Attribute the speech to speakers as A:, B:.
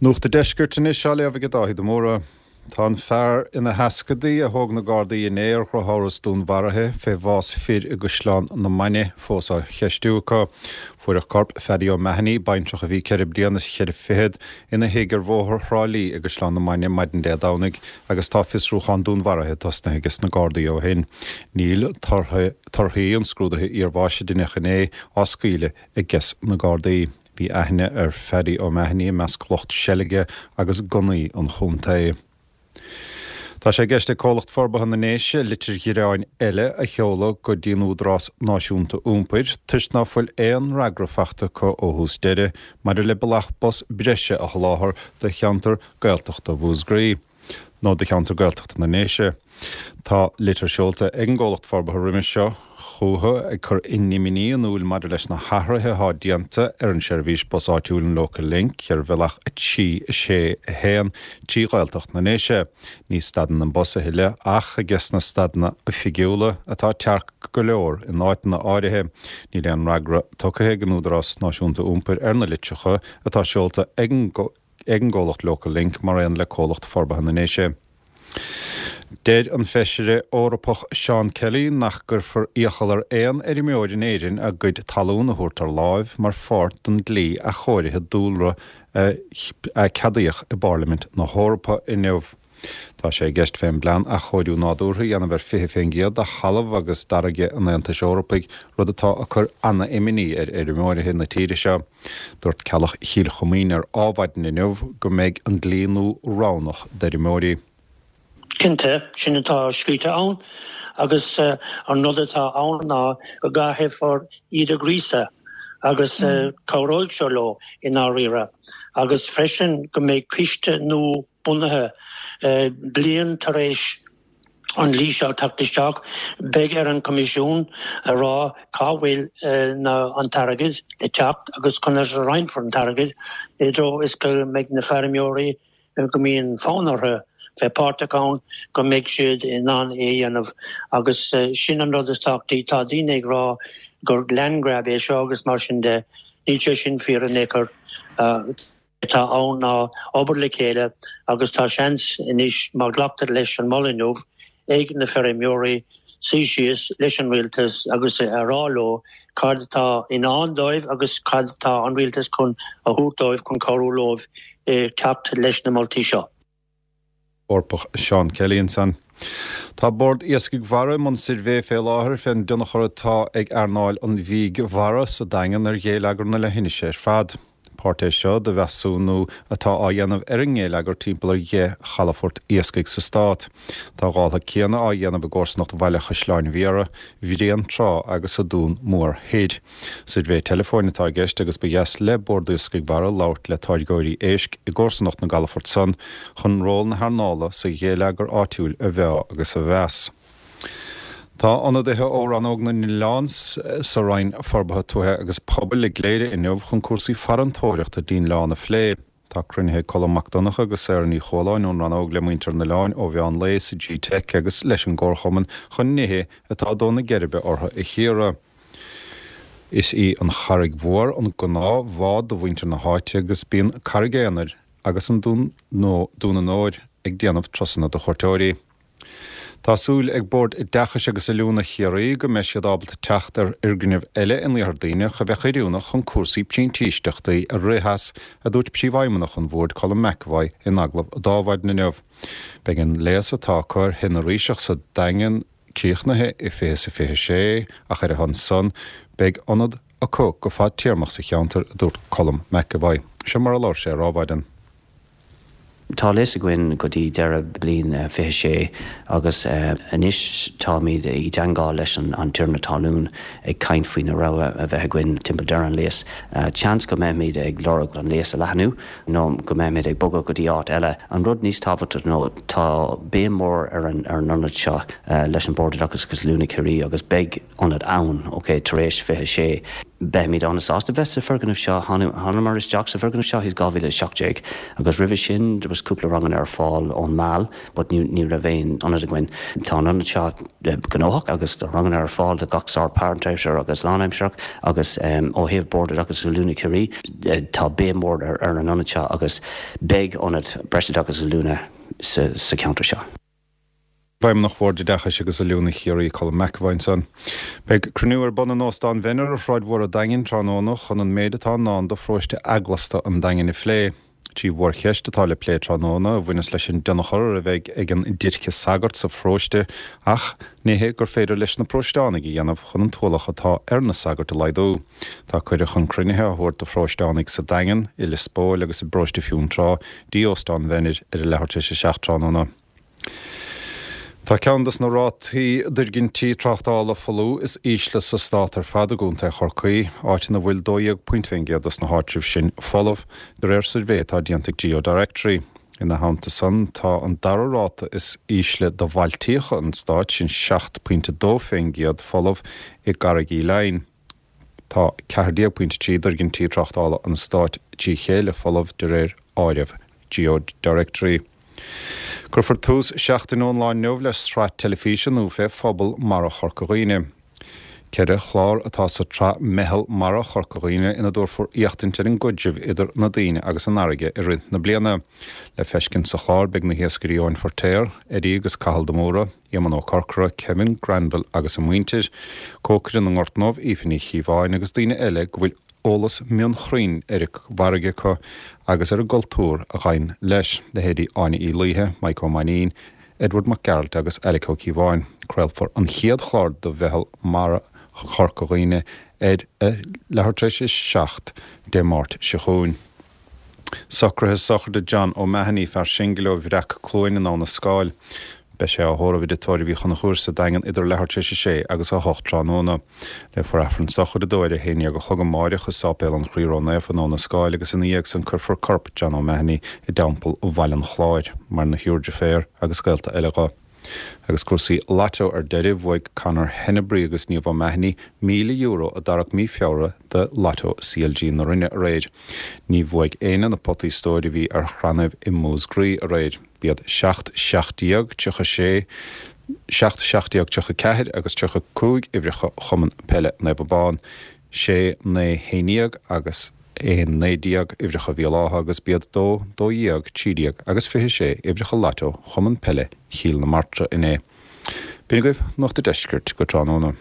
A: Nuacht an Deiscirt anois á léamh ag Dáithí de Mórdha. Tá an fear ina sheascadaí a thóg na Gardaí inné ar dhrochamhras dúnmharaithe fé bhás fir i gCaisleán na Mainge fós á cheistiú acu. Fuaireadh corp Phaddy O'Mahony, baintreach a bhí 4 bliana is cheithre fichead, ina thigh ar Bhóthar Thrá Lí i gCaisleán na Mainge maidin Dé Domhnaigh agus tá fiosrúchán dúnmharaithe tosnaithe ages na Gardaí ó shin. Níl torthaí an scrúdaithe iarbháis a deineadh inné á scaoileadh ages na Gardaí. Bhí aithne ar Phaddy O'Mahony i measc lucht seilge agus gunnaí an chontae. Tá sé i gceist ag Comhlacht Forbartha na nDéise litir ghearáin eile a sheoladh go dtí an Údarás Náisiúnta Iompair toisc ná fuil aon fhreagra faighte acu ó thús deireadh maidir le bealach bus breise a sholáthar do cheantar Gaeltachta Mhúscraí. nó do cheantar Gaeltachta na nDéise. Tá litir seolta ag an gcomhlacht forbartha roimis seo chucu ag cur a n-imní in iúil maidir leis na hathruithe atá déanta ar an seirbhís bus áitiúil an Local Link ar bhealach 3, 6, 1 trí Ghaeltacht na nDéise. Ní stadann an bus a thuilleadh ach ages na stadanna oifigiúla, atá tearc go leor in áiteanna áirithe. Níl aon fhreagra tugtha ag an Údarás Náisiúnta Iompair ar na litreacha atá seolta ag an ag an gcomhlacht Local Link mar aon le Comhlacht Forbartha na nDéise. Deir an Feisire Eorpach Seán Kelly nach gcuirfear iachall ar aon fheirmeoir in Éirinn a gcuid talún a thabhairt ar láimh mar pháirt den dlí athchóirithe dúlra a ceadaíodh i bPairlimint na hEorpa inniu. Tá sé i gceist fén bplean athchóiriú nádúrtha a dhéanamh ar 20% de thalamh agus d'fharraige an Aontais Eorpaigh, rud atá ag cur ana-imní ar fheirmeoirithe na tíre seo. Dúirt Ceallach Chill Choimín ar Ádhmhaidin inniu go mbeidh an dlí nua roghnach d'fheirmeoirí.
B: Cinnte, sin atá scríte ann agus an rud atá ann ná go gcaithfear iad a ghríosadh agus cabhróidh seo leo i ndáiríre agus freisin go mbeidh coiste nua bunaithe. Bliain tar éis an dlí seo teacht isteach, beidh ar an Choimisiún a rá cá bhfuil an t-airgead le teacht agus conas a roinnfear an t-airgead i dtreo is go mbeidh na feirmeoirí go mbíonn fonn orthu bheith páirteach ann, go mbeidh siad in ann é a dhéanamh. Agus sin an rud is tábhachtaí. Tá daoine ag rá gur land grab é seo agus mar sin de. Níl sé sin fíor in aon chor. atá ann ná obair le chéile agus tá seans anois má ghlactar leis an moladh inniu ag na feirmeoirí suí síos leis an rialtas agus a rá leo cad atá i ndán dóibh agus cad atá an rialtas chun a thabhairt dóibh chun cabhrú leo teacht leis na moltaí seo.
A: Eorpach Seán Kelly ansan. Tá Bord Iascaigh Mhara i mbun suirbhé fé láthair fén dtionchar atá ag earnáil an bhídh mhara sa Daingean ar ghéilleagar na leithinise ar fad. Páirt é seo de mheasúnú atá á dhéanamh ar an ngéilleagar timpeall ar dheich chalafort iascaigh sa stát. Tá a dhála céanna á dhéanamh i gcomharsanacht Bhaile Chaisleáin Bhiara, Bhréantrá agus sa Dún Mór Thoir. Suirbhé teileafóin atá i gceist agus ba dheas le Bord Iascaigh Mhara labhairt le táirgeoirí éisc i gcomharsanacht na gcalafort san chun ról na hearnála sa ghéilleagar áitiúil a mheá agus a mheas. Tá ionadaithe ó Rannóg na nOileán sa Roinn Forbartha Tuaithe agus Pobail i gCléire inniu chun cúrsaí farantóireachta dtí'n oileán a phlé. Tá cruinnithe ag Colm Mac Donncha agus Sarah Ní Chualáin ón rannóg le muintir an oileáin ó mheán lae sa G-Teic agus leis an gComharchumann chun nithe atá ag dó na geirbe orthu a chíoradh. Is í an Charraig Mhór an gnáth bhád do mhuintir na háite agus bíonn Carraig Aonair agus an Dún Dún an Óir ag déanamh turasanna do chuairteoirí. Tá súil ag Bord Oideachais agus Oiliúna Chiarraí go mbeidh siad ábalta teacht ar fhoirgneamh eile in Iarthar Duibhneach a bheadh oiriúnach chun cúrsaí printíseachtaí a rith as, a dúirt Príomhfheidhmeannach an Bhoird Colm McEvoy in agallamh d'Adhmhaidin inniu. Beidh an léas atá acu ar Thigh na Ríseach sa Daingean críochnaithe i 2026 ach ar a shon san beidh ionad acu go fadtéarmach sa cheantar, a dúirt Colm McEvoy. Seo mar a labhair sé ar Adhmhaidin.
C: Tá léas againn go dtí deireadh bliain 26 agus anois táimid i dteangmháil leis an tiarna talún ag caint faoi na rogha a bheith againn timpeall deireadh an léas. Seans go mbeimid ag lorg an léas a leathnú nó go mbeimid ag bogadh go dtí áit eile. An rud níos tábhachtaí ná tá béim mór ar an ionad seo leis an Bord Oideachais agus Oiliúna Chiarraí agus beidh ionad ann, ok, tar éis 26. Beimid an-sásta bheith sa foirgneamh seo. Thánamar isteach sa bhfoirgneamh seo i 2017 agus roimhe sin there was cúpla ranganna ar fáil ón Meal but ní raibh aon ionad againn. Tá an ionad seo gnóthach agus tá ranganna ar fáil do gach sórt páirtaimseartha agus lánaimsearach agus ó thaobh Bord Oideachais agus Oiliúna Chiarraí tá béim mhór ar an ionad seo agus beidh ionad breisoideachais agus oiliúna sa cheantar seo.
A: Feidhmeannach Bhord Oideachais agus Oiliúna Chiarraí, Colm McEvoy ansan. Beidh cruinniú ar bun in Óstán Mhenner ar Shráid Mhór an Daingin tráthnóna chun an méid atá i ndán do pharóiste eaglasta an Daingin a phlé. Trí mhórcheist atá le plé tráthnóna, a bhaineas leis an dtionchar a bheidh ag an déirce sagart sa pharóiste ach nithe gur féidir leis na paróisteánaigh a dhéanamh chun an t-ualach atá ar na sagairt a laghdú. Tá cuireadh chun cruinnithe á thabhairt do pharóisteánaigh sa Daingean, i Lios Póil agus i bparóiste Fionntrá dtí Óstán Mhenner ar a leathuair tar éis a 7 tráthnóna. Tá ceann des na rátaí d'fhoirgintí tráchtála folamh is ísle sa stát ar fad i gContae Chorcaí, áit ina bhfuil 12 pointe fén gcéad des na háitribh sin folamh, de réir suirbhé atá déanta ag GeoDirectory. Ina theannta san, tá an dara ráta is ísle do bhailtíocha an stáit, sin 7 pointe 2 fén gcéad folamh, i gCarraig Uí Leighin. Tá 14 pointe 3 d'fhoirgintí tráchtála an stáit trí chéile folamh de réir áireamh GeoDirectory. Cuirfear tús seachtain ón lá inniu le sraith teilifíse nua fé phobal mara Chorca Dhuibhne. Ceithre chlár atá sa tsraith Meitheal Mara Chorca Dhuibhne ina dtabharfar éachtaint ar an gcaidreamh idir na daoine agus an fharraige i rith na bliana. Le feiscint sa chlár beidh na hiascairí Eoin Feirtéar, Eddie agus Cathal de Mórdha, Éamonn Ó Corcora, Kevin Granville agus a muintir, cócaire na nGort nDubh, Aoife Ní Chíobháin agus daoine eile go bhfuil eolas mionchruinn ar an bhfarraige acu agus ar an gcultúr a ghabhann leis, leithéidí Áine Uí Laoithe, Mike Ó Mainnín, Edward Mac Gearailt agus Alec Ó Cíobháin. Craolfar an chéad chlár de Mheitheal Mara Chorca Dhuibhne ar a leathuair tar éis a 7 Dé Máirt seo chugainn. Socruithe sochraide John O'Mahony, fear singil ó Bhreac Cluain in Abha na Scáil. Beidh sé á thórramh i dTigh Tórraimh Uí Chonchúir sa Daingean idir leathuair tar éis a sé agus a hocht tráthnóna. Léifear Aifreann sochraide dó ar a haon dhéag a chlog amáireach i Sáipéal an Chroí Ró-Naofa in Abha na Scáil agus ina dhiaidh san cuirfear corp John O'Mahony i dTeampall Bhaile an Chláir, maireann a thriúr deirféar agus gaolta eile dho. Agus cúrsaí Lotto ar deireadh, bhuaigh Conor Henebry agus Niamh O'Mahony €1,000 a dtarrac mí Feabhra de Lotto CLG na Rinne aréir. Ní bhuaigh éinne na potaí stóir a bhí ar chrannaibh i Músgraí aréir. B'iad 7, 17, 36, 7, 17, 34 agus 35 uimhreacha Chumann Peile Naomh Abán. 6, 9, 11 agus 1, 19 uimhreacha Bhéal Átha agus b'iad 2, 12, 13 agus 26 uimhreacha Lotto Chumann Peile Chill na Martra inné. B'in agaibh Nuacht a' Deiscirt go tráthnóna.